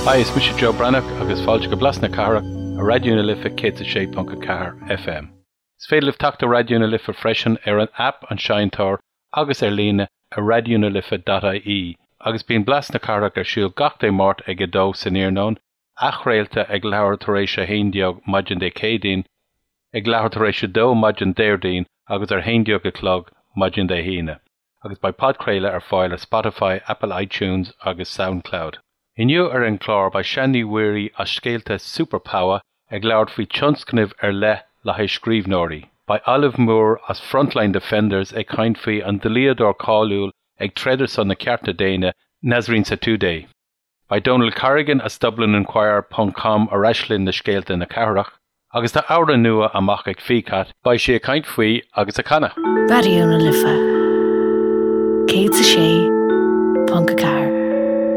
Hi, is mise Joe Breathnach agus fáilte go Blas na Cathrach ar Raidió na Life 106.4 FM. Is féidir libh teacht ar Raidió na Life freisin ar an aip An Seinnteoir agus ar líne ar raidionalife.ie agus bíonn Blas na Cathrach ar siúl gach Dé Máirt ag 2 san iarnóin, athchraolta ag leathuair tar éis 11 maidin Dé Céadaoin, ag leathuair tar éis 2 maidin Déardaoin agus ar 11 a chlog maidin Dé hAoine, agus beidh podchraoladh ar fáil ar Spotify, Apple iTunes agus Soundcloud. Inniu ar an gclár beidh Sean Ní Mhuirí as Scéalta Super Pawa ag labhairt faoi tionscnamh ar leith le haghaidh scríbhneoirí. Beidh Olive Moore as Frontline Defenders ag caint faoi an dlíodóir cáiliúil ag troid ar son na cearta daonna, Nasrin Sotoudeh. Beidh Donal Corrigan as Dublininquirer ponc com ar ais linn le scéalta na cathrach. Agus tá amhrán nua amach ag Ficat, beidh sí ag caint faoi agus ag canadh. Raidió na Life 106.4.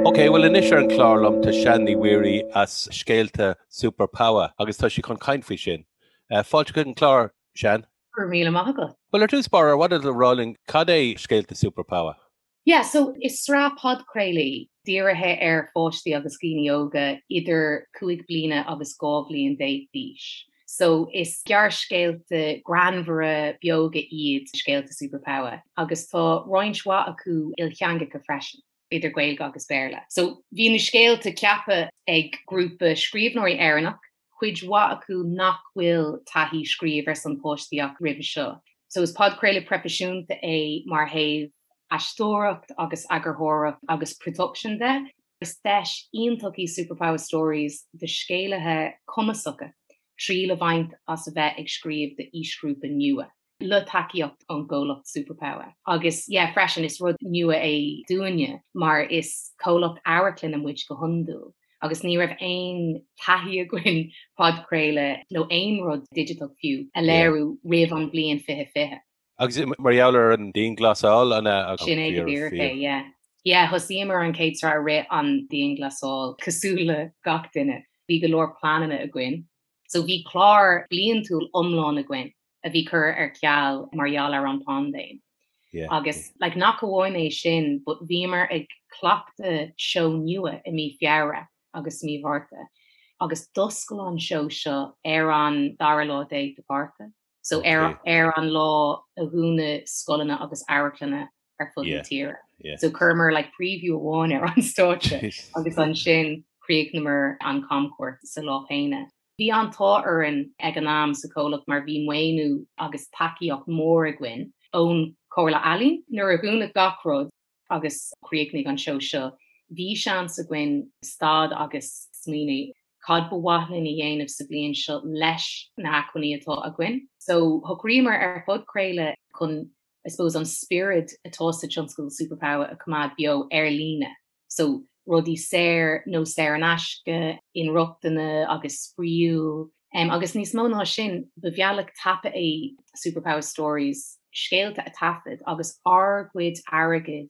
Ok, bhuel anois ar an chlár liom tá Sean Ní Mhuirí as Scéalta Super Pawa agus tá sí chun caint faoi sin. Fáilte chuig an chlár, Sean. Go raibh míle maith agat. Bhuel ar dtús báire, ar mhaith leat a rá linn cad é Scéalta Super Pawa? Yeah, so is sraith podchraolaí dírithe ar pháistí agus dhaoine óga idir 5 bliana agus 12 bhliain d'aois. So is gearrscéalta greannmhara beoga iad Scéalta Super Pawa agus tá roinnt mhaith acu ilteangacha freisin, idir Gaeilge agus Béarla. So bhí na scéalta ceaptha ag grúpa scríbhneoirí Éireannach cuid mhaith acu nach bhfuil taithí scríobh ar son páistí acu roimhe seo. So is podchraoladh proifisiúnta é mar thaobh aisteoireacht agus eagarthóireacht agus production de. Is deis iontach í Super Pawa Stories do scéalaithe cumasacha triail a bhaint as a bheith ag scríobh d'aoisghrúpa nua. le tacaíocht ón gcomhlacht Super Pawa. Agus yeah freisin is rud nua é dúinne mar is comhlacht amharclainne muid go hiondúil agus ní raibh aon taithí againn podchraoladh nó aon rud digiteach fiú a léiriú roimh an bhliain 2020. Agus mar gheall ar an dianghlasáil an ea? Sin é go díreach é, yeah. Yeah, thosaíomar an chéad sraith i rith an dianghlasáil, cosúil le gach duine. Bhí go leor pleananna againn. So bhí clár bliantúil iomlán againn a bhí curtha ar ceal mar gheall ar an bpaindéim. Agus like nach amháin é sin but bhíomar ag cleachtadh seó nua i mí Feabhra agus mí Mhárta agus d'oscail an seó seo ar an dara lá déag de Mhárta. So ar ar an lá a dhúnadh scoileanna agus amharclanna ar fud na tíre. So chuireamar like preview amháin ar an stáitse agus ansin chríochnamar an camchuairt sa lá céanna. Bhí an t-ádh orainn ag an am sa chomhlacht mar bhí maoiniú agus tacaíocht mór againn ón Chomhairle Ealaíon. Nuair a dhúnadh gach rud agus chríochnaigh an seó seo, bhí seans againn stad agus smaoineamh cad ba mhaith linn a dhéanamh sa bhliain seo leis na hacmhainní atá againn. So shocraíomar ar phodchraoladh chun I suppose an spiorad atá sa tionscadal Super Pawa a choimeád beo ar líne. So rudaí saor nó saor in aisce, inrochtana agus spraíúil. Agus níos mó ná sin, ba bhealach tapa é Super Pawa Stories scéalta a taifead agus ár gcuid airgid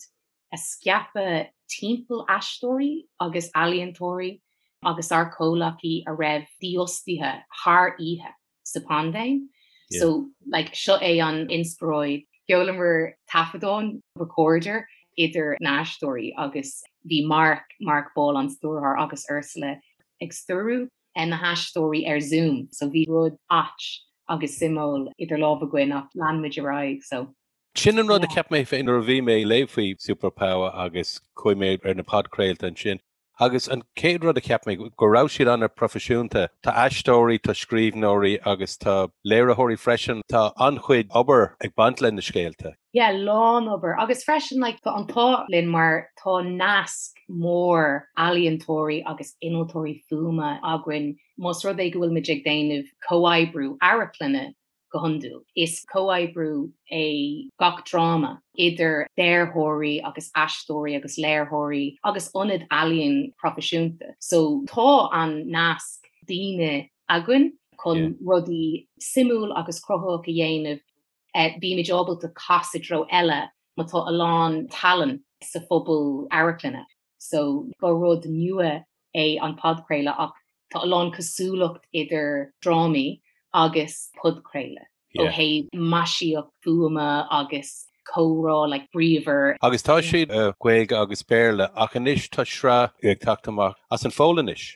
a scaipeadh timpeall aisteoirí agus ealaíontóirí agus ár comhleacaí a raibh dífhostaithe thar oíche. sa paindéim. So like seo é an inspioráid. Sheolamar taifeadán, recorder, idir na haisteoirí agus bhí Mark, Mark Ball an stiúrthóir agus Ursula ag stiúrú na haisteoirí ar Zoom. So bhí rud ait agus suimiúil idir lámha againn ach lean muid ar aghaidh so. Sin an rud a cheap mé féin nuair a bhí mé ag léamh faoi Super Pawa agus chuaigh mé ar na podchraolta ansin. Agus an chéad rud a cheap mé, go raibh siad an-proifisiúnta. Tá aisteoirí, tá scríbhneoirí agus tá léiritheoirí freisin. Tá an-chuid obair ag baint le na scéalta. Yeah, lán obair. Agus freisin like tá an t-ádh linn mar tá nasc mór ealaíontóirí agus innealtóirí fuaime againn. Más rud é go bhfuil muid ag déanamh comhoibriú amharclainne, Go hiondúil, is comhoibriú é gach dráma idir dearthóirí agus aisteoirí agus léiritheoirí agus ionad ealaíon proifisiúnta. So tá an nasc daoine againn chun rudaí suimiúil agus cruthaitheach a dhéanamh. Bímid ábalta casadh i dtreo eile má tá a lán tallann sa phobal amharclainne. So ba rud nua é an podchraoladh ach tá a lán cosúlacht idir drámaí agus podchraoladh ó thaobh maisíocht fuaime agus. Comhrá like bríomhar. Agus tá siad i Gaeilge agus Béarla ach anois tá sraith ag teacht amach as an Pholainnis.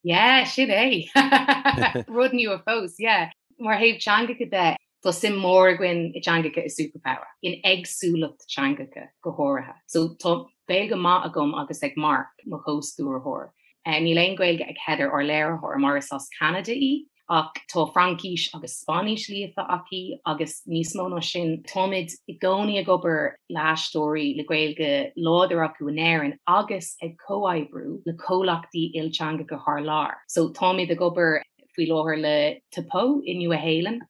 Yeah, sin é. Rud nua fós, yeah. Mar thaobh teangacha de, tá suim mór againn i dteangacha i Superpower, in éagsúlacht teangacha go háirithe. So tá Gaeilge maith agam agus ag Mark, mo chomhstiúrthóir. Níl aon Ghaeilge ag Heather, ár léiritheoir, mar is as Ceanada í. Ach tá Fraincis agus Spáinnis líofa aici agus níos mó ná sin, táimid i gcónaí ag obair le haisteoirí le Gaeilge láidir acu in Éirinn agus ag comhoibriú le comhlachtaí ilteangacha thar lear. So táimid ag obair faoi láthair le Te Pou i Nua Shéalainn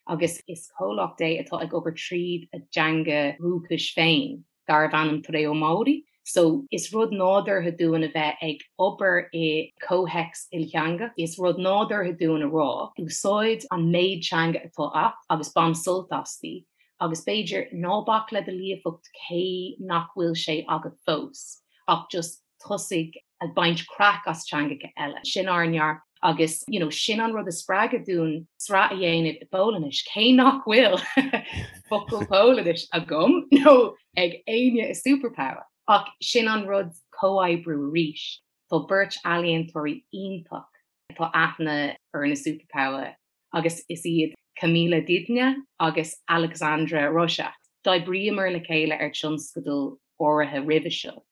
agus is comhlacht é atá ag obair tríd a dteanga dhúchais féin. darbh ainm Te Reo Māori. So, is rud nádúrtha dúinn a bheith ag obair i comhthéacs ilteangach. Is rud nádúrtha dúinn a rá, úsáid an méid teanga atá a't agus bain sult asti, agus b'fhéidir ná bac le do líofacht cé nach bhfuil sé agat fós, ach just tosaigh ag baint craic as teangacha eile. Sin ár ndearcadh agus you know sin an rud a spreag dúinn sraith a dhéanamh i bPolainnis, cé nach bhfuil focal Polainnis agam nó ag éinne i Superpower. Ach sin an rud comhoibriú arís. Tá beirt ealaíontóirí iontach atá aithne orainn i Superpower agus is iad Kamila Dynia agus Aleksandra Rosiak. D'oibríomar le chéile ar tionscadal áirithe roimhe seo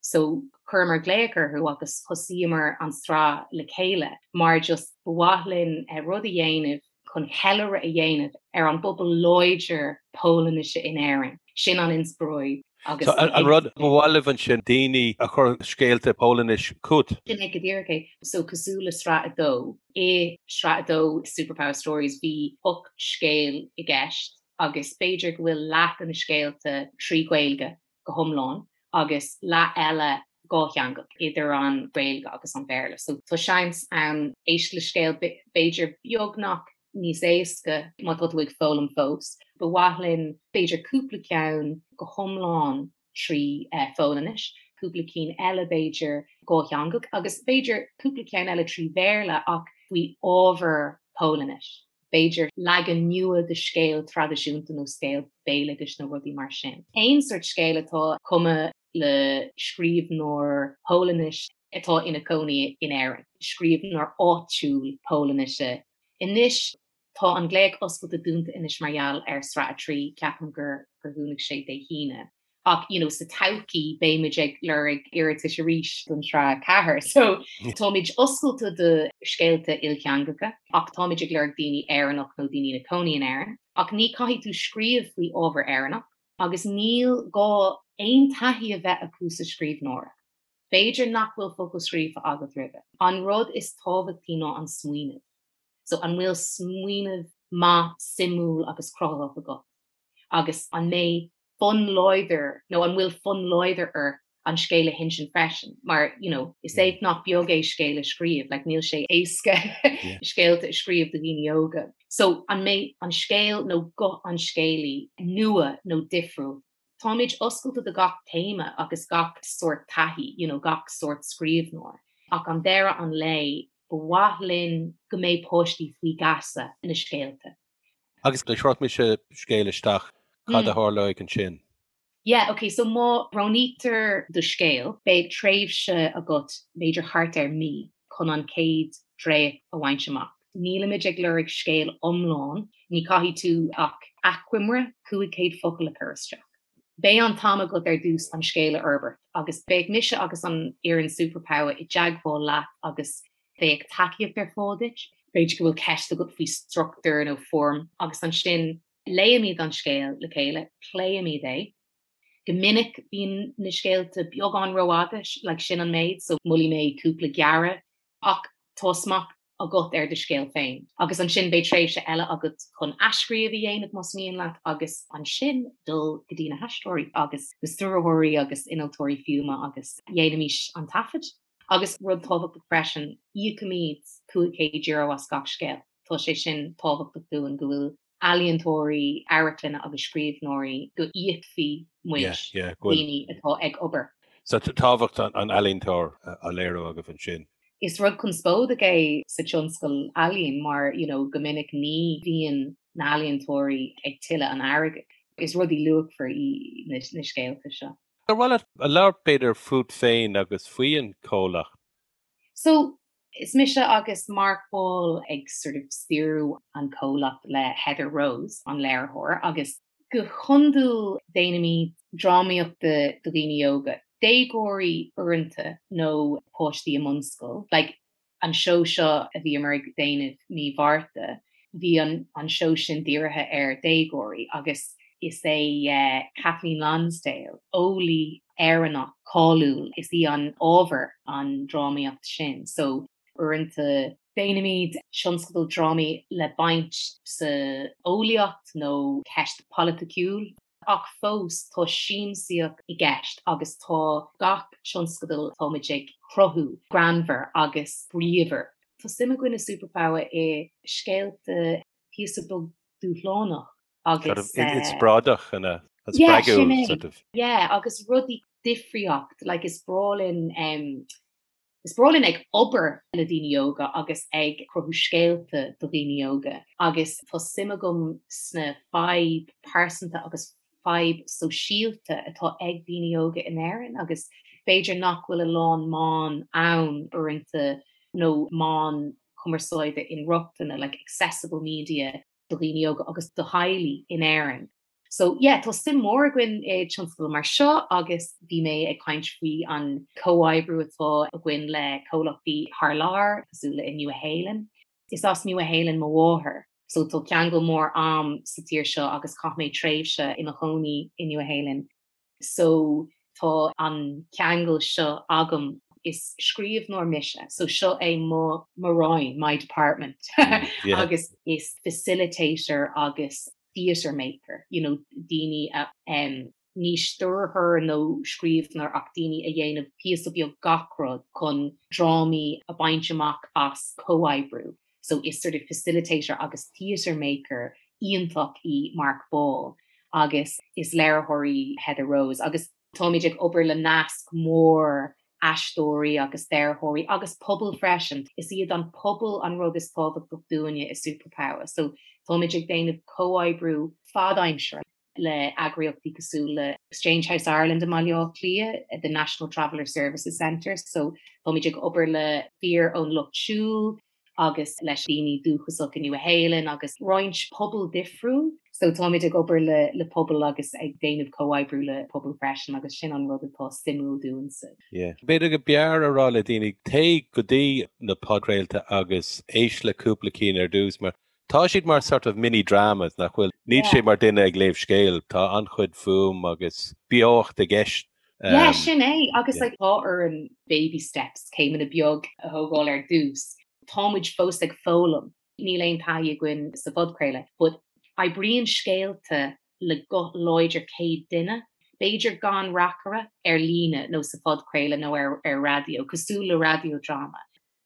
so chuireamar glaoch orthu agus thosaíomar an tsraith le chéile mar just ba mhaith linn rud a dhéanamh chun ceiliúradh a dhéanamh ar an bpobal láidir Polainnise in Éirinn. Sin an inspioráid agus. So an rud ba mhaith libh ansin daoine a chur scéalta Polainnis chugat? Sin é go díreach é. So cosúil le sraith 2, i sraith 2 Superpower Stories bhí 8 scéal i gceist agus b'fhéidir go bhfuil leath de na scéalta trí Ghaeilge go hiomlán agus leath eile dhátheangach, idir an Ghaeilge agus an Béarla. So tá seans ann éist le scéal b'fhéidir beagnach níos éasca má tá tú ag foghlaim fós. Ba mhaith linn b'fhéidir cúpla ceann go hiomlán trí Pholainnis, cúpla cinn eile b'fhéidir dhátheangach agus b'fhéidir cúpla ceann eile trí Bhéarla ach faoi ábhar Polainnis. b'fhéidir leagan nua de scéal traidisiúnta nó scéal béaloidis nó rudaí mar sin. Aon sórt scéil atá cumtha le scríbhneoir Polainnis atá ina cónaí in Éirinn, scríbhneoir áitiúil Polainnise. Anois tá an glaoch oscailte dúnta anois mar gheall ar Sraith 3, ceapaim gur dhúnadh sé Dé hAoine. Ach you know sa todhchaí beimid ag lorg iarratais arís don tsraith 4. So táimid oscailte do scéalta ilteangacha ach táimid ag lorg daoine Éireannach nó daoine ina cónaí in Éirinn. Ach ní caithfidh tú scríobh faoi ábhar Éireannach agus níl gá aon taithí a bheith acu sa scríbhneoireacht. B'fhéidir nach bhfuil focal scríofa agat roimhe. An rud is tábhachtaí ná an smaoineamh. So an bhfuil smaoineamh maith, suimiúil agus cruthaitheach agat? Agus an mbeidh fonn láidir nó an bhfuil fonn láidir ort an scéal a hinsint freisin mar you know is éacht nach beag é scéal a scríobh like níl sé éasca scéalta a scríobh do dhaoine óga. So an mbeidh an scéal nó guth an scéalaí nua nó difriúil? Táimid oscailte do gach téama agus gach sórt taithí, you know gach sórt scríbhneoir ach an deireadh an lae ba mhaith linn go mbeidh páistí faoi gheasa na scéalta. Agus dá gcuirfeadh mise scéal isteach, cad a tharlóidh ansin? Yeah, ok, so má roghnaítear do scéal, beidh tréimhse agat, b'fhéidir thart ar mí, chun an chéad dréacht a bhaint amach. Nílimid ag lorg scéal iomlán, ní caithfidh tú ach achoimre 500 focal a chur isteach. Beidh an t-am agat ar dtús an scéal a fhorbairt agus beidh mise agus an fhoireann Superpower i dteagmháil leat agus Beidh tacaíocht ar fáil duit. B'fhéidir go bhfuil ceist agat faoi struchtúr nó foirm agus ansin léimid an scéal le chéile, pléimid é. Go minic bíonn na scéalta beagán rófhada, like sin an méid, so molfaidh mé cúpla gearradh ach tá smacht agat ar do scéal féin. Agus ansin beidh tréimhse eile agat chun athscríobh a dhéanamh más mian leat agus ansin dul go dtí na haisteoirí agus na stiúrthóirí agus innealtóirí fuaime agus dhéanaimis an taifead. Agus rud tábhachtach freisin, íocaimid €500 as gach scéal. Tá sé sin tábhachtach dúinn, go bhfuil ealaíontóirí amharclainne agus scríbhneoirí, go íocfaidh muid daoine atá ag obair. So tábhacht an ealaíontóir á léiriú agaibh ansin. Is rud conspóideach é sa tionscal ealaíon mar you know go minic ní bhíonn na healaíontóirí ag tuilleadh an airgid. Is rudaí luachmhar í na scéalta seo. Ar mhaith leat a labhairt b'fhéidir fút féin agus faoi an comhlacht? So, is mise agus Mark Ball ag sort of stiúradh an comhlacht le Heather Rose, an léiritheoir, agus go hiondúil déanaimid drámaíocht do dhaoine óga, déagóirí uaireanta nó páistí i mbunscoil. Like, an seó seo a bhíomar ag déanamh mí Mhárta, bhí an an seó sin dírithe ar déagóirí agus is é Kathleen Lonsdale, eolaí Éireannach cáiliúil, is í an ábhar an drámaíocht sin. So uaireanta déanaimid tionscadal drámaí le baint sa eolaíocht nó ceist polaiticiúil. Ach fós tá siamsaíocht i gceist agus tá gach tionscadal atáimid ag cruthú greannmhar agus bríomhar. Tá suim againn i Superpaua i scéalta píosa beag dúshlánach agus. Inspioráideach an ea? Spreagúil sort of. Yeah, agus rudaí difríocht, like is breá linn Is breá linn ag obair le daoine óga agus ag cruthú scéalta do dhaoine óga agus tá suim agam sna fadhb pearsanta agus fadhb sóisialta atá ag daoine óga in Éirinn agus b'fhéidir nach bhfuil a lán meán ann uaireanta nó meán cumarsáide inrochtana, like accessible media do dhaoine óga agus do theaghlaigh in Éirinn. So yeah, tá suim mór againn i tionscadal mar seo agus bhí mé ag caint faoi an comhoibriú atá againn le comhlachtaí thar lear, cosúil le i Nua Shéalainn. Is as Nua Shéalainn mo mháthair, so tá ceangal mór a'm sa tír seo agus chaith mé tréimhse i mo chónaí i Nua Shéalainn. So tá an ceangal seo agam. Is scríbhneoir mise, so seo é mo mo roinn, my department, agus is facilitator agus theatre maker, you know, daoine a, em, ní stiúrthóir nó scríbhneoir ach daoine a dhéanamh píosa beag gach rud chun drámaí a baint amach as comhoibriú. So is sort of facilitator agus theatre maker iontach í Mark Ball agus is léiritheoir í Heather Rose agus táimid ag obair le nasc mór aisteoirí agus dearthóirí agus pobal freisin. Is iad an pobal an rud is tábhachtach dúinne i Superpaua so táimid ag déanamh comhoibriú fad-aimsire le eagraíochtaí cosúil le Exchange House Ireland i mBaile Átha Cliath, the National Traveller Services Centre so táimid ag obair le fir ón Lucht Siúil agus leis daoine dúchasach i Nua Shéalainn agus roinnt pobal difriúil. So táimid ag obair le le pobal agus ag déanamh comhoibriú le pobal freisin agus sin an rud atá suimiúil dúinse. Yeah. B'fhéidir go mb'fhearr a rá le daoine, téigh go dtí na podchraolta agus éist le cúpla cinn ar dtús mar tá siad mar sort of mini dramas nach bhfuil? Níl sé mar duine ag léamh scéil, tá an-chuid fuaim agus beocht i gceist. Yeah, sin é agus like tá orainn baby steps, céimeanna beag a thógáil ar dtús. Tá muid fós ag foghlaim, níl aon taithí againn sa phodchraoladh, but oibríonn scéalta le guth láidir céad duine, b'fhéidir gan reacaire, ar líne nó sa phodchraoladh nó ar ar raidió, cosúil le raidió dráma.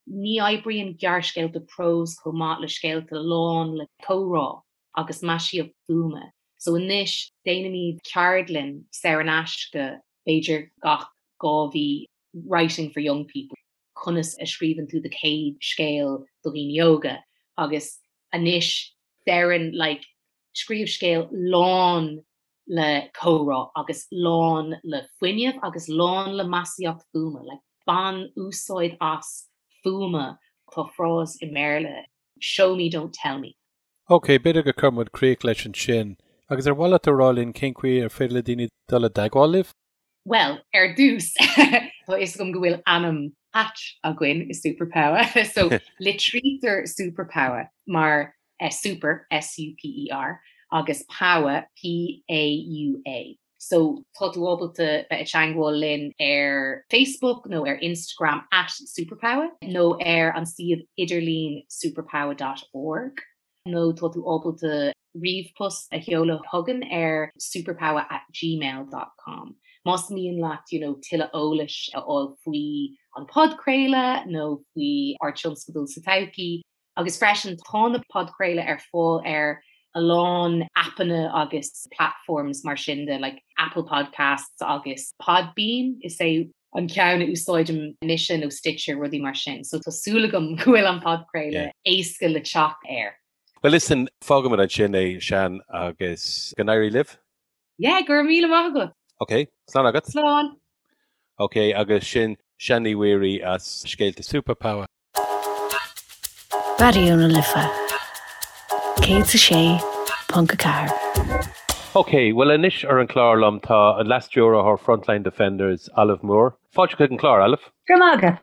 Ní oibríonn gearrscéalta próis chomh maith le scéalta lán le comhrá. agus maisíocht fuaime. So anois déanaimid ceardlann saor in aisce b'fhéidir gach 2 mhí, Writing for Young People, conas a scríobhann tú do chéad scéal do dhaoine óga agus anois deireann like scríobh scéal lán le comhrá agus lán le fuinneamh agus lán le maisíocht fuaime, like bain úsáid as fuaime, tá frás i mBéarla, show me don't tell me. Ok, b'fhéidir go cuirfidh muid críoch leis ansin. Agus ar mhaith leat a rá linn cén chaoi ar féidir le daoine dul i dteagmháil libh? Bhuel, ar dtús, tá fhios agam go bhfuil ainm ait againn i Superpaua, so litrítear Superpaua mar Super, S-U-P-E-R, agus Paua, P-A-U-A. So tá tú ábalta bheith i dteangmháil linn ar Facebook nó ar Instagram at Superpaua nó ar an suíomh idirlín superpaua dot org nó tá tú ábalta ríomhpost a sheoladh chugainn ar superpaua at gmail dot com. Más mian leat you know tuilleadh eolais a fháil faoi an podchraoladh nó faoi ár tionscadal sa todhchaí, Agus freisin tá na podchraoladh ar fáil ar a lán aipeanna agus platforms mar sin de like Apple Podcasts agus Podbean is é an ceann a úsáidim mise nó Stitcher rudaí mar sin. So tá súil agam go bhfuil an podchraoladh éasca le teacht air. Well listen, fágfaimid ansin é Sean agus go n-éirí libh. Yeah, go raibh míle maith agat. Ok, slán agat. Slán. Ok, agus sin Sian Ní Mhuirí as Scéalta Superpower. Raidió na Life 106.4. Ok, bhuel anois ar an chlár liom tá an Leas-Stiúrthóir Frontline Defenders, Olive Moore. Fáilte chuig an chlár, Olive. Go raibh maith agat.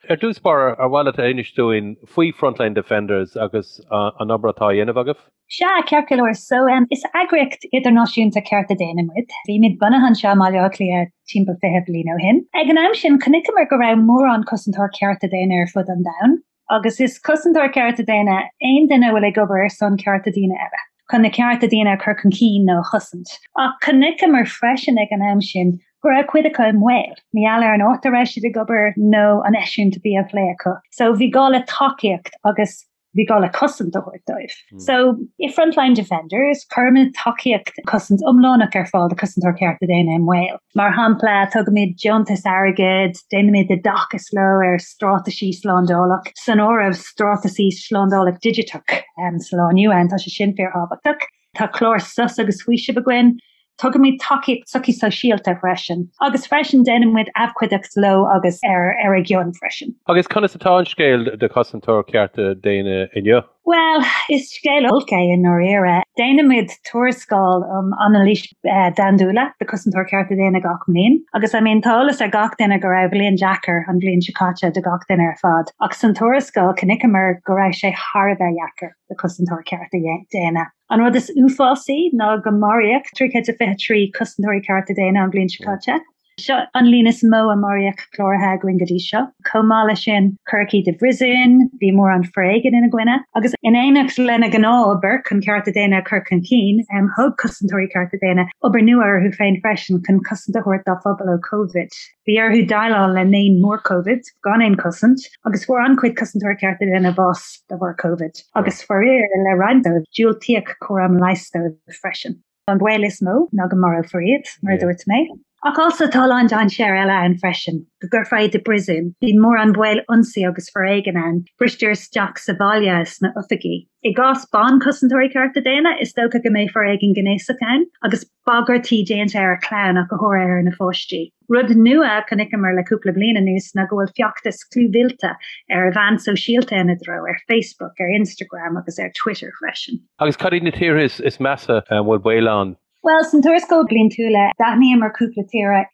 Ar dtús báire, ar mhaith leat a inis dúinn faoi Frontline Defenders agus an obair atá á dhéanamh agaibh? Sea, ceart go leor. So, is eagraíocht idirnáisiúnta cearta daonna muid. Bhí muid bunaithe anseo i mBaile Átha Cliath timpeall 20 bliain ó shin. Ag an am sin, chonaiceamar go raibh mórán cosantóir cearta daonna ar fud an domhain. Agus is cosantóir cearta daonna aon duine a bhfuil ag obair ar son cearta daoine eile, chun na cearta daonna a chur chun cinn nó a chosaint. Ach chonaiceamar freisin ag an am sin go raibh cuid acu i mbaol, mar gheall ar an áit a raibh siad ag obair nó an eisiúint a bhí á phlé acu. So bhí gá le tacaíocht agus bhí gá le cosaint a thabhairt dóibh. So i Frontline Defenders, cuirimid tacaíocht cosaint iomlánach ar fáil do chosantóir cearta daonna i mbaol. Mar shampla, tugaimid deontais airgid, déanaimid oideachas leo ar straitéisí slándála, san áireamh straitéisí slándála digiteach sa lá inniu ann, tá sé sin fíorthábhachtach. Tá clár sos agus faoisimh againn. Tugaimid tacaíocht sochaí sóisialta freisin. Agus freisin déanaimid abhcóideacht leo agus ar ar a gcion freisin. Agus conas atá an scéal do chosantóir cearta daonna inniu? Bhuel, is scéal olc é i ndáiríre. Déanaimid tuarascáil um anailís domhaindúla do chosantóir cearta daonna gach mbliain. Agus I mean tá eolas ar gach duine go raibh bliain deacair an bhliain seo caite do gach duine ar fad. Ach san tuarascáil chonaiceamar go raibh sé thar a bheith deacair do chosantóir cearta daonna. An rud is uafásaí ná go maraíodh 323 cosantóirí cearta daonna an bhliain seo caite. Seo an líon is mó a maraíodh cláraithe againn go dtí seo. Chomh maith leis sin, cuireadh iad i bpríosún, bhí mórán foréigin ina gcoinne, agus in éineacht lena ngnáth-obair chun cearta daonna a chur chun cinn, thóg cosantóirí cearta daonna obair nua orthu féin freisin chun cosaint a thabhairt dá phobal ó Covid. Bhí orthu déileáil le naon mór Covid gan aon chosaint, agus fuair an-chuid cosantóirí cearta daonna bás de bharr Covid, agus faraor le roinnt dóibh, diúltaíodh cúram leighis dóibh freisin. An baol is mó ná go marófar iad, mar a dúirt mé. Ach also tá a lán dainséar eile ann freisin, go gcuirfear iad i bpríosún. Bíonn mórán baol ionsaí agus foréigin ann, bristear isteach sa bhaile is sna oifigí. I gcás ban-chosantóirí cearta daonna, is dócha go mbeidh foréigean gnéasach ann, agus bagairtí déanta ar a clann ach go háirithe ar na pháistí. Rud nua a chonaiceamar le cúpla bliain anuas ná go bhfuil feachtas clúmhillte ar mheáin sóisialta ina dtreo, ar Facebook, ar Instagram agus ar Twitter freisin. Agus cad iad na tíortha is measa a bhfuil baol ann? Bhuel, san tuarascáil bliantúla, d'aithníomar cúpla tír.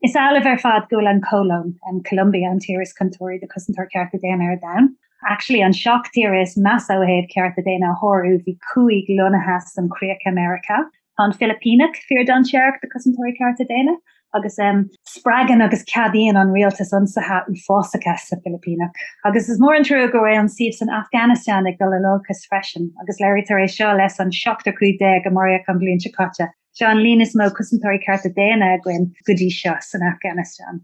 Is amhlaidh ar fad go bhfuil an Cholóim, Colombia, an tír is contúirtí do chosantóir cearta daonna ar domhan. Actually, an 7 tír is measa ó thaobh cearta daonna a shárú, bhí 5 lonnaithe san chríoch i Meiriceá. Tá an Philipíneach fíor-dainséarach do chosantóirí cearta daonna agus spreagann agus ceadaíonn an rialtas ionsaithe uafásacha sa Philipíneach. Agus is mór an trua go bhfuil an suíomh san Afghanistan ag dul in olcas freisin agus léirítear é seo leis an seachtar 15 a maraíodh an bhliain seo caite. Seo an líon is mó cosantóirí cearta daonna againn go dtí seo san Afghanistan.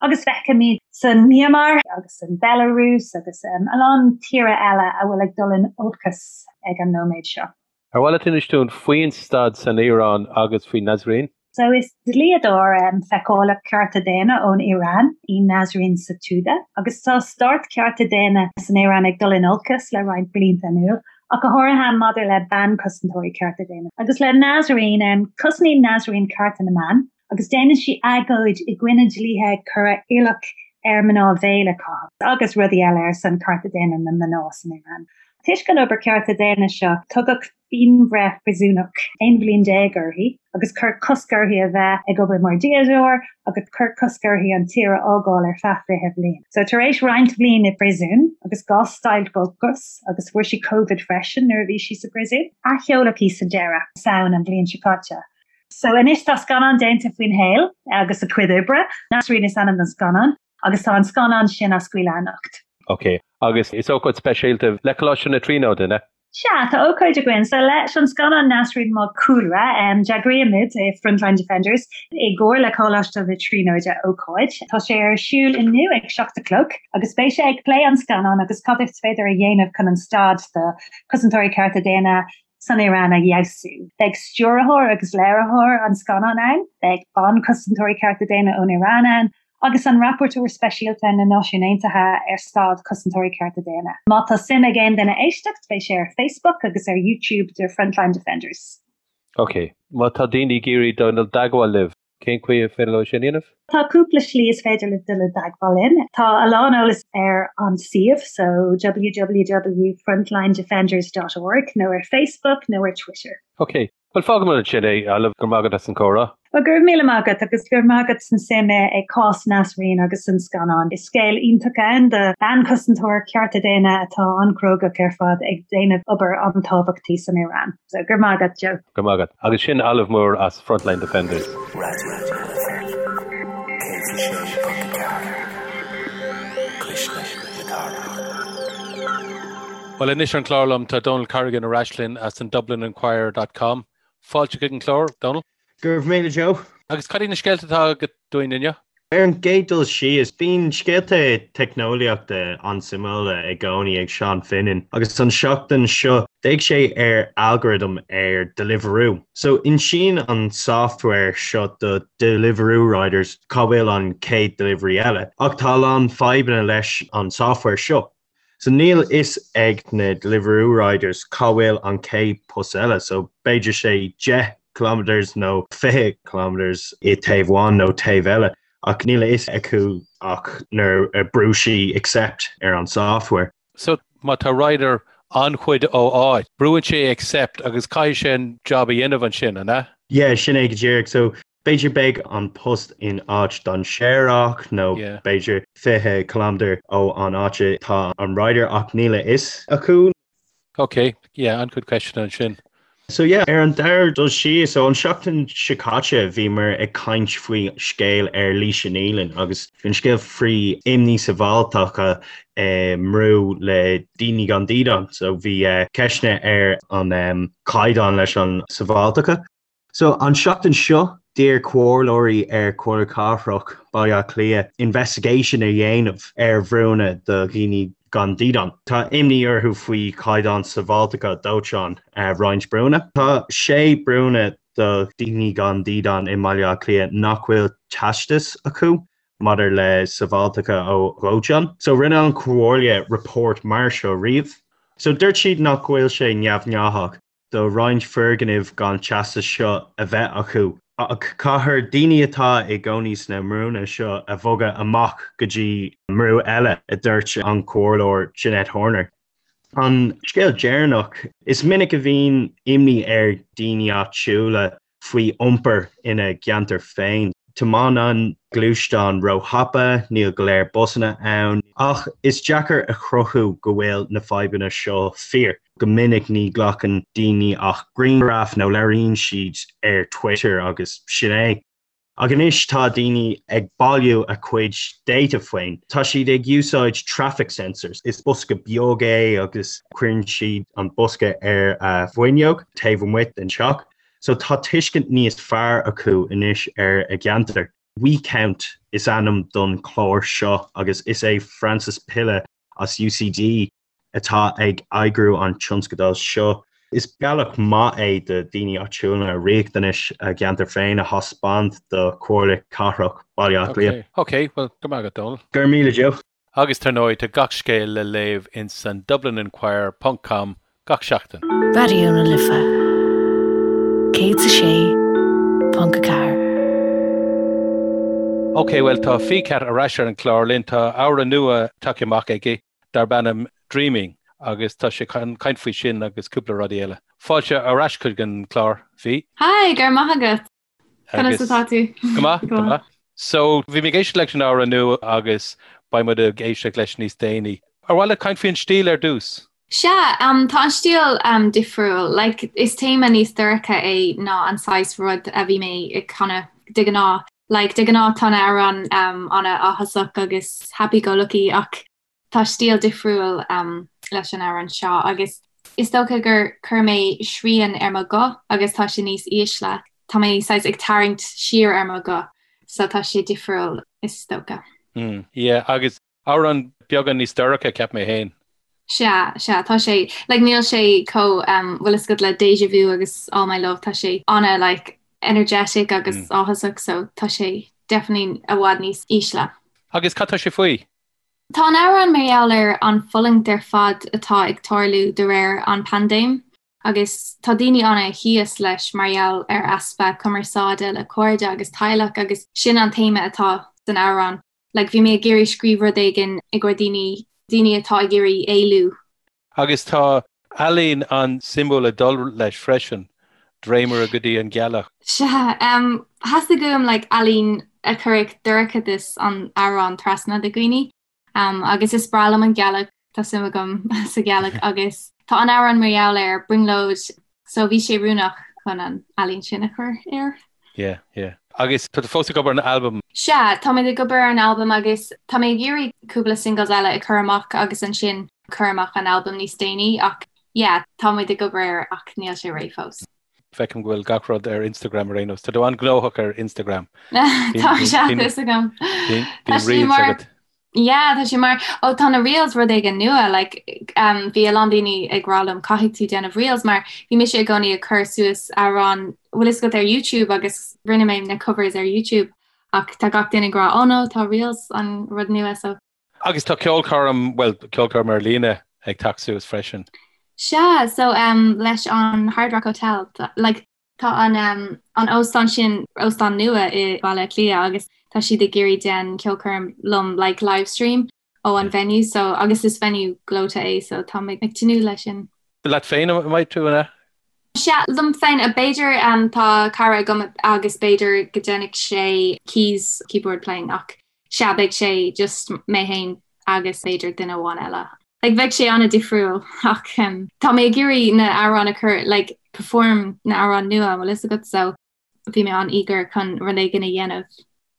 Agus feicimid san Myanmar agus san Belarus agus a lán tíortha eile a bhfuil ag dul in olcas ag an nóiméad seo. Ar mhaith leat inis dúinn faoin staid san Iaráin agus faoi Nasrin? So is dlíodóir feiceálach cearta daonna ón Iaráin í Nasrin Sotoudeh agus tá stát cearta daonna san Iaráin ag dul in olcas le roinnt blianta anuas, ach go háirithe maidir le ban-chosantóirí cearta daonna. Agus le Nasrin, cosnaíonn Nasrin cearta na mban agus déanann sí agóid i gcoinne dlíthe ag cur iallach ar mná veil a chaitheamh agus rudaí eile ar son cearta daonna na mná san Iaráin. Toisc an obair cearta daonna seo, tugadh pianbhreith phríosúnach 11 bhliain uirthi agus cuireadh cosc uirthi a bheith ag obair mar dhlíodóir agus cuireadh cosc uirthi an tír a fhágáil ar feadh 20 bhliain. So tar éis roinnt bhliain i bpríosún agus dhá stailc ocrais agus fuair sí Covid freisin nuair a bhí sí sa bpríosún, athsheoladh í sa deireadh, Samhain an bhliain seo caite. So anois tá scannán déanta faoina shaol agus a cuid oibre. Nasrin is ainm don scannán agus tá an scannán sin á scaoileadh anocht. Ok, agus is ócáid speisialta le Coláiste na Tríonóide, an ea? Sea, tá ócáid againn. So leis an scannán Nasrin mar chúlra, d'eagraíomid i Frontline Defenders i gcomhar le Coláiste na Tríonóide ócáid. Tá sé ar siúl inniu ag 7 a chlog agus beidh sé ag plé an scannán agus cad is féidir a dhéanamh chun an staid do chosantóirí cearta daonna san Iaráin a fheabhsú. Beidh stiúrthóir agus léiritheoir an scannáin ann, beidh ban-chosantóirí cearta daonna ón Iaráin ann, agus an Rapporteur Speisialta na Náisiún Aontaithe ar staid cosantóirí cearta daonna. Má tá suim ag aon duine éisteacht, beidh sé ar Facebook agus ar YouTube de Frontline Defenders. Ok. Má tá daoine ag iarraidh dul i dteagmháil libh, cén chaoi ar féidir leo sin a dhéanamh? Tá cúpla slí is féidir libh dul i dteagmháil linn. Tá a lán eolas ar an suíomh, so www.frontlinedefenders dot org, nó ar Facebook nó ar Twitter. Ok. Bhuel, fágfaimid ansin é, Olive, go raibh maith agat as an gcomhrá. Bhuel, go raibh míle maith agat agus go raibh maith agat as an suim i cás Nasrin agus an scannán. Is scéal iontach ann do bhean cosantóir cearta daonna atá an-chrógach ar fad ag déanamh obair an-tábhachtach san Iran. So, go raibh maith agat, Joe. Go raibh maith agat. Agus sin Olive Moore as Frontline Defenders. Raidió na Life 106.4, Cuisle na Cathrach. Bhuel, anois ar an chlár liom tá Donal Corrigan ar ais linn as an DublinInquirer dot com. Fáilte chuig an chlár, Donal. Go raibh míle, Joe. Agus cad iad na scéalta atá agat dúinn inniu? Ar an gcéad dul síos, bíonn scéalta teicneolaíochta an-suimiúla i gcónaí ag Seán Finan agus an seachtain seo d'fhéach sé ar algorithm ar Deliveroo. So insíonn an software seo do Deliveroo riders cá bhfuil an chéad delivery eile ach tá a lán fadhbanna leis an software seo. So níl fhios ag na Deliveroo riders cá bhfuil an chéad post eile, so b'fhéidir sé 10 kilometres nó 20 kilometres i taobh amháin nó taobh eile, ach níl a fhios acu ach nuair a brú sí accept ar an software. So má tá rider an-chuid ó áit, brúann sé accept agus caithfidh sé an job a dhéanamh ansin, an ea? Yeah, sin é go díreach. So B'fhéidir beidh an post in áit dainséarach nó b'fhéidir 20 kilometre ó an áit atá an rider ach níl a fhios acu. Ok, yeah, an-chuid ceisteanna ansin. So yeah, ar an dara dul síos, so an seachtain seo caite bhíomar ag caint faoi scéal ar Laoise Nealon agus bhí an scéal faoi imní sábháilteachta i mbrú le daoine gan dídean. So bhí ceisteanna ar an caighdeán leis an sábháilteachta. So, an seachtain seo, d'iarr comhairleoirí ar Chomhairle Cathrach Baile Átha Cliath investigation a dhéanamh ar bhrúnna do dhaoine gan dídean. Tá imní orthu faoi chaighdeán sábháilteachta dóiteáin roinnt brúnna. Tá sé brúnna do dhaoine gan dídean i mBaile Átha Cliath nach bhfuil teastas acu maidir le sábháilteachta ó dhóiteán. So, rinne an Chomhairle report mar seo riamh. So, dúirt siad nach bhfuil sé neamhghnáthach. do roinnt foirgnimh gan teastas seo a bheith acu, ach caithfear daoine atá i gcónaí sna mbrúnna seo a bhogadh amach go dtí mbrú eile, a dúirt an Comhairleoir Jeanette Horner. An scéal deireanach, is minic a bhíonn imní ar dhaoine áitiúla faoi iompar ina gceantar féin. Tiomáineann gluaisteáin róthapa, níl go leor busanna ann, ach is deacair a chruthú go bhfuil na fadhbanna seo fíor. Go minic ní ghlacann daoine ach grianghraf nó labhraíonn siad ar Twitter agus sin é. Ach anois tá daoine ag bailiú a cuid data féin. Tá siad ag úsáid traffic sensors. Is bosca beag é agus cuireann siad an bosca ar a bhfuinneog taobh amuigh den teach. So tá tuiscint níos fearr acu anois ar a gceantar. WeCount is ainm don chlár seo agus is é Francis Pilla as UCD atá ag eagrú an tionscadail seo. Is bealach maith é do daoine áitiúla riachtanais a gceantar féin a thaispeáint do Chomhairle Cathrach Baile Átha Cliath. Ok, bhuel, go raibh maith agat, Dónal. Go raibh míle, Joe. Agus tar ndóigh, tá gach scéal le léamh in san DublinInquirer ponc com gach seachtain. Raidió na Life 106.4. Ok, bhuel tá Ficat ar ais ar an chlár linn. Tá amhrán nua tagtha amach aige darb ainm Dreaming agus tá sé chun caint faoi sin agus cúpla rudaí eile. Fáilte ar ais chuig an chlár, Fi. Hi, go raibh maith agat. Conas atá tú? Go maith, go maith. So, bhí mé ag éisteacht leis an amhrán nua agus beidh muid ag éisteacht leis níos déanaí. Ar mhaith leat caint faoin stíl ar dtús? Sea, tá an stíl difriúil. Like, is téama níos dorcha é ná an saghas rud a bhí mé ag canadh de ghnáth. Like, de ghnáth tá na hamhráin an-áthasach agus happy-go-lucky ach Tá stíl difriúil leis an amhrán seo agus is dócha gur chuir mé srian ar mo ghuth agus tá sé níos ísle. Tá mé saghas ag tarraingt siar ar mo ghuth so tá sé difriúil is dócha. Mm, yeah, agus amhrán beagán níos dorcha, cheap mé féin. Sea, sea, tá sé, like níl sé chomh, um, bhfuil fhios agat le Deja Vu agus All My Love, tá sé ana like energetic agus mm. áthasach so tá sé definitely i bhfad níos ísle. Agus cad tá sé faoi? Tá an amhrán mar gheall ar an fulaingt ar fad atá ag tarlú de réir an paindéim. Agus tá daoine ana thíos leis mar gheall ar easpa cumarsáide le cairde agus teaghlach agus sin an téama atá san amhrán. Like bhí mé ag iarraidh scríobh rud éigin i gcomhair daoine, daoine atá ag iarraidh éalú. Agus tá ealaín an-suimiúil ag dul leis freisin, dréimire go dtí an ghealach. Sea, theastaigh uaim like ealaín a chuirfeadh dorchadas an amhráin trasna do dhaoine. Agus is breá liom an ghealach, tá suim agam sa ghealach agus tá an amhrán mar gheall ar brionglóid so bhí sé oiriúnach chun an ealaín sin a chur air. Yeah, yeah. Agus tá tú fós ag obair ar an albam? Sea, tá mé ag obair ar an albam agus tá mé ag iarraidh cúpla singles eile a chur amach agus ansin cur amach an albam níos déanaí ach yeah, tá muid ag obair air ach níl sé réidh fós. Feicim go bhfuil gach rud ar Instagram ar aon nós. Tá tú an-ghnóthach ar Instagram. Tá sé fhios agam. Bíonn reels agat. Yeah, tá sé mar ó tá na reels rud éigin nua like um, bhí a lán daoine ag rá liom caithfidh tú déanamh reels mar bhí mise i gcónaí ag cur suas amhrán bhfuil fhios agat ar YouTube agus rinne mé na covers ar YouTube ach tá gach duine ag rá oh no tá reels an rud nua so Agus tá ceolchoirm, bhuel, ceolchoirm ar líne ag teacht suas freisin. Sea, so um, leis an Hard Rock Hotel, like, tá an, um, an óstán sin, óstán nua i Baile Átha Cliath agus tá siad ag iarraidh déan ceolchoirm liom, like, live stream ó an venue, so, agus is venue gleoite é, so tá mé ag tnúth leis sin. Leat féin a mbeidh tú, an ea? Sea, liom féin, b'fhéidir, tá cara agam agus b'fhéidir go déanfaidh sé keys, keyboard playing ach Sea, beidh sé just mé féin agus b'fhéidir duine amháin eile. Like, bheadh sé an-difriúil ach tá mé ag iarraidh na amhráin a chur, like, perform na amhráin nua, an bhfuil fhios agat, so bhí mé an-eager chun rud éigin a dhéanamh.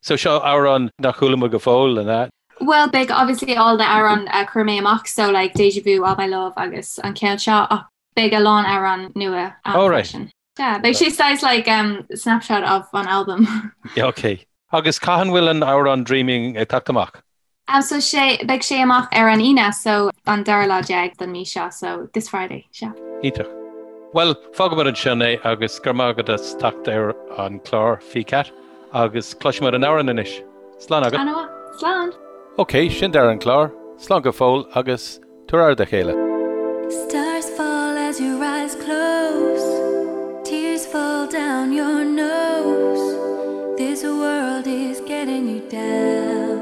So seo amhrán nach chuala muid go fóill, an ea? Well, beidh obviously all the amhráin a chuir mé amach, so like Deja Vu, All My Love agus an ceann seo ach beidh a lán amhrán nua ann Oh right. freisin. Yeah, beidh sé saghas like um, snapshot of an album. Yeah, ok. Agus cathain bhfuil an amhrán Dreaming ag teacht amach? Um, so sé, beidh sé amach ar an Aoine, so an dara lá déag den mí seo, so this Friday, sea. Iontach. Bhuel, fágfaimid ansin é agus go raibh maith agat as teacht ar an chlár, Ficat, agus cloisfimid an amhrán anois. Slán agat. An-mhaith. Slán! Ok, sin deireadh an chláir. Slán go fóill agus Tabhair aire dá chéile. Stars fall as your eyes close Tears fall down your nose This world is getting you down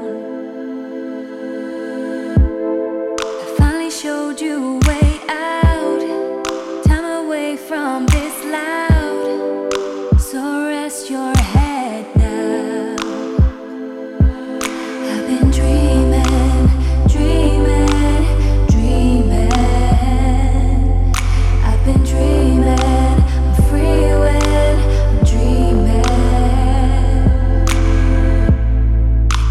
I finally showed you a way out Time away from this loud So rest your head now I've been dreaming, dreaming, dreaming. I've been dreaming, I'm free when I'm dreaming.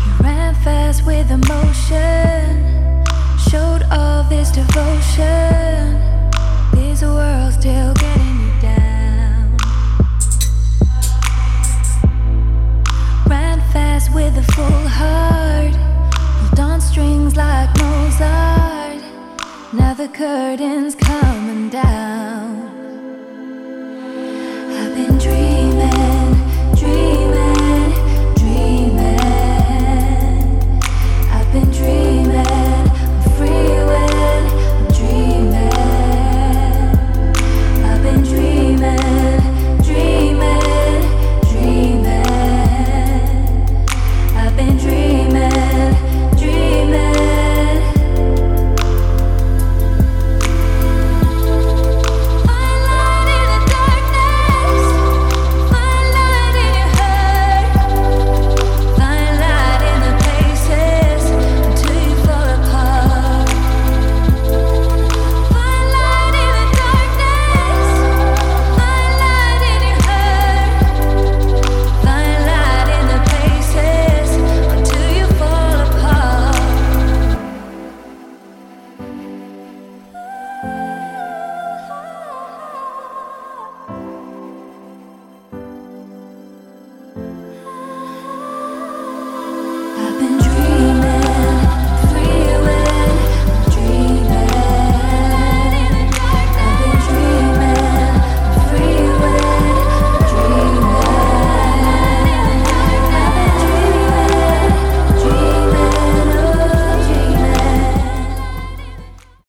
You ran fast with emotion, showed all this devotion. This world's still getting you down. Ran fast with a full heart, pulled on strings like Mozart. Now the curtain's coming down.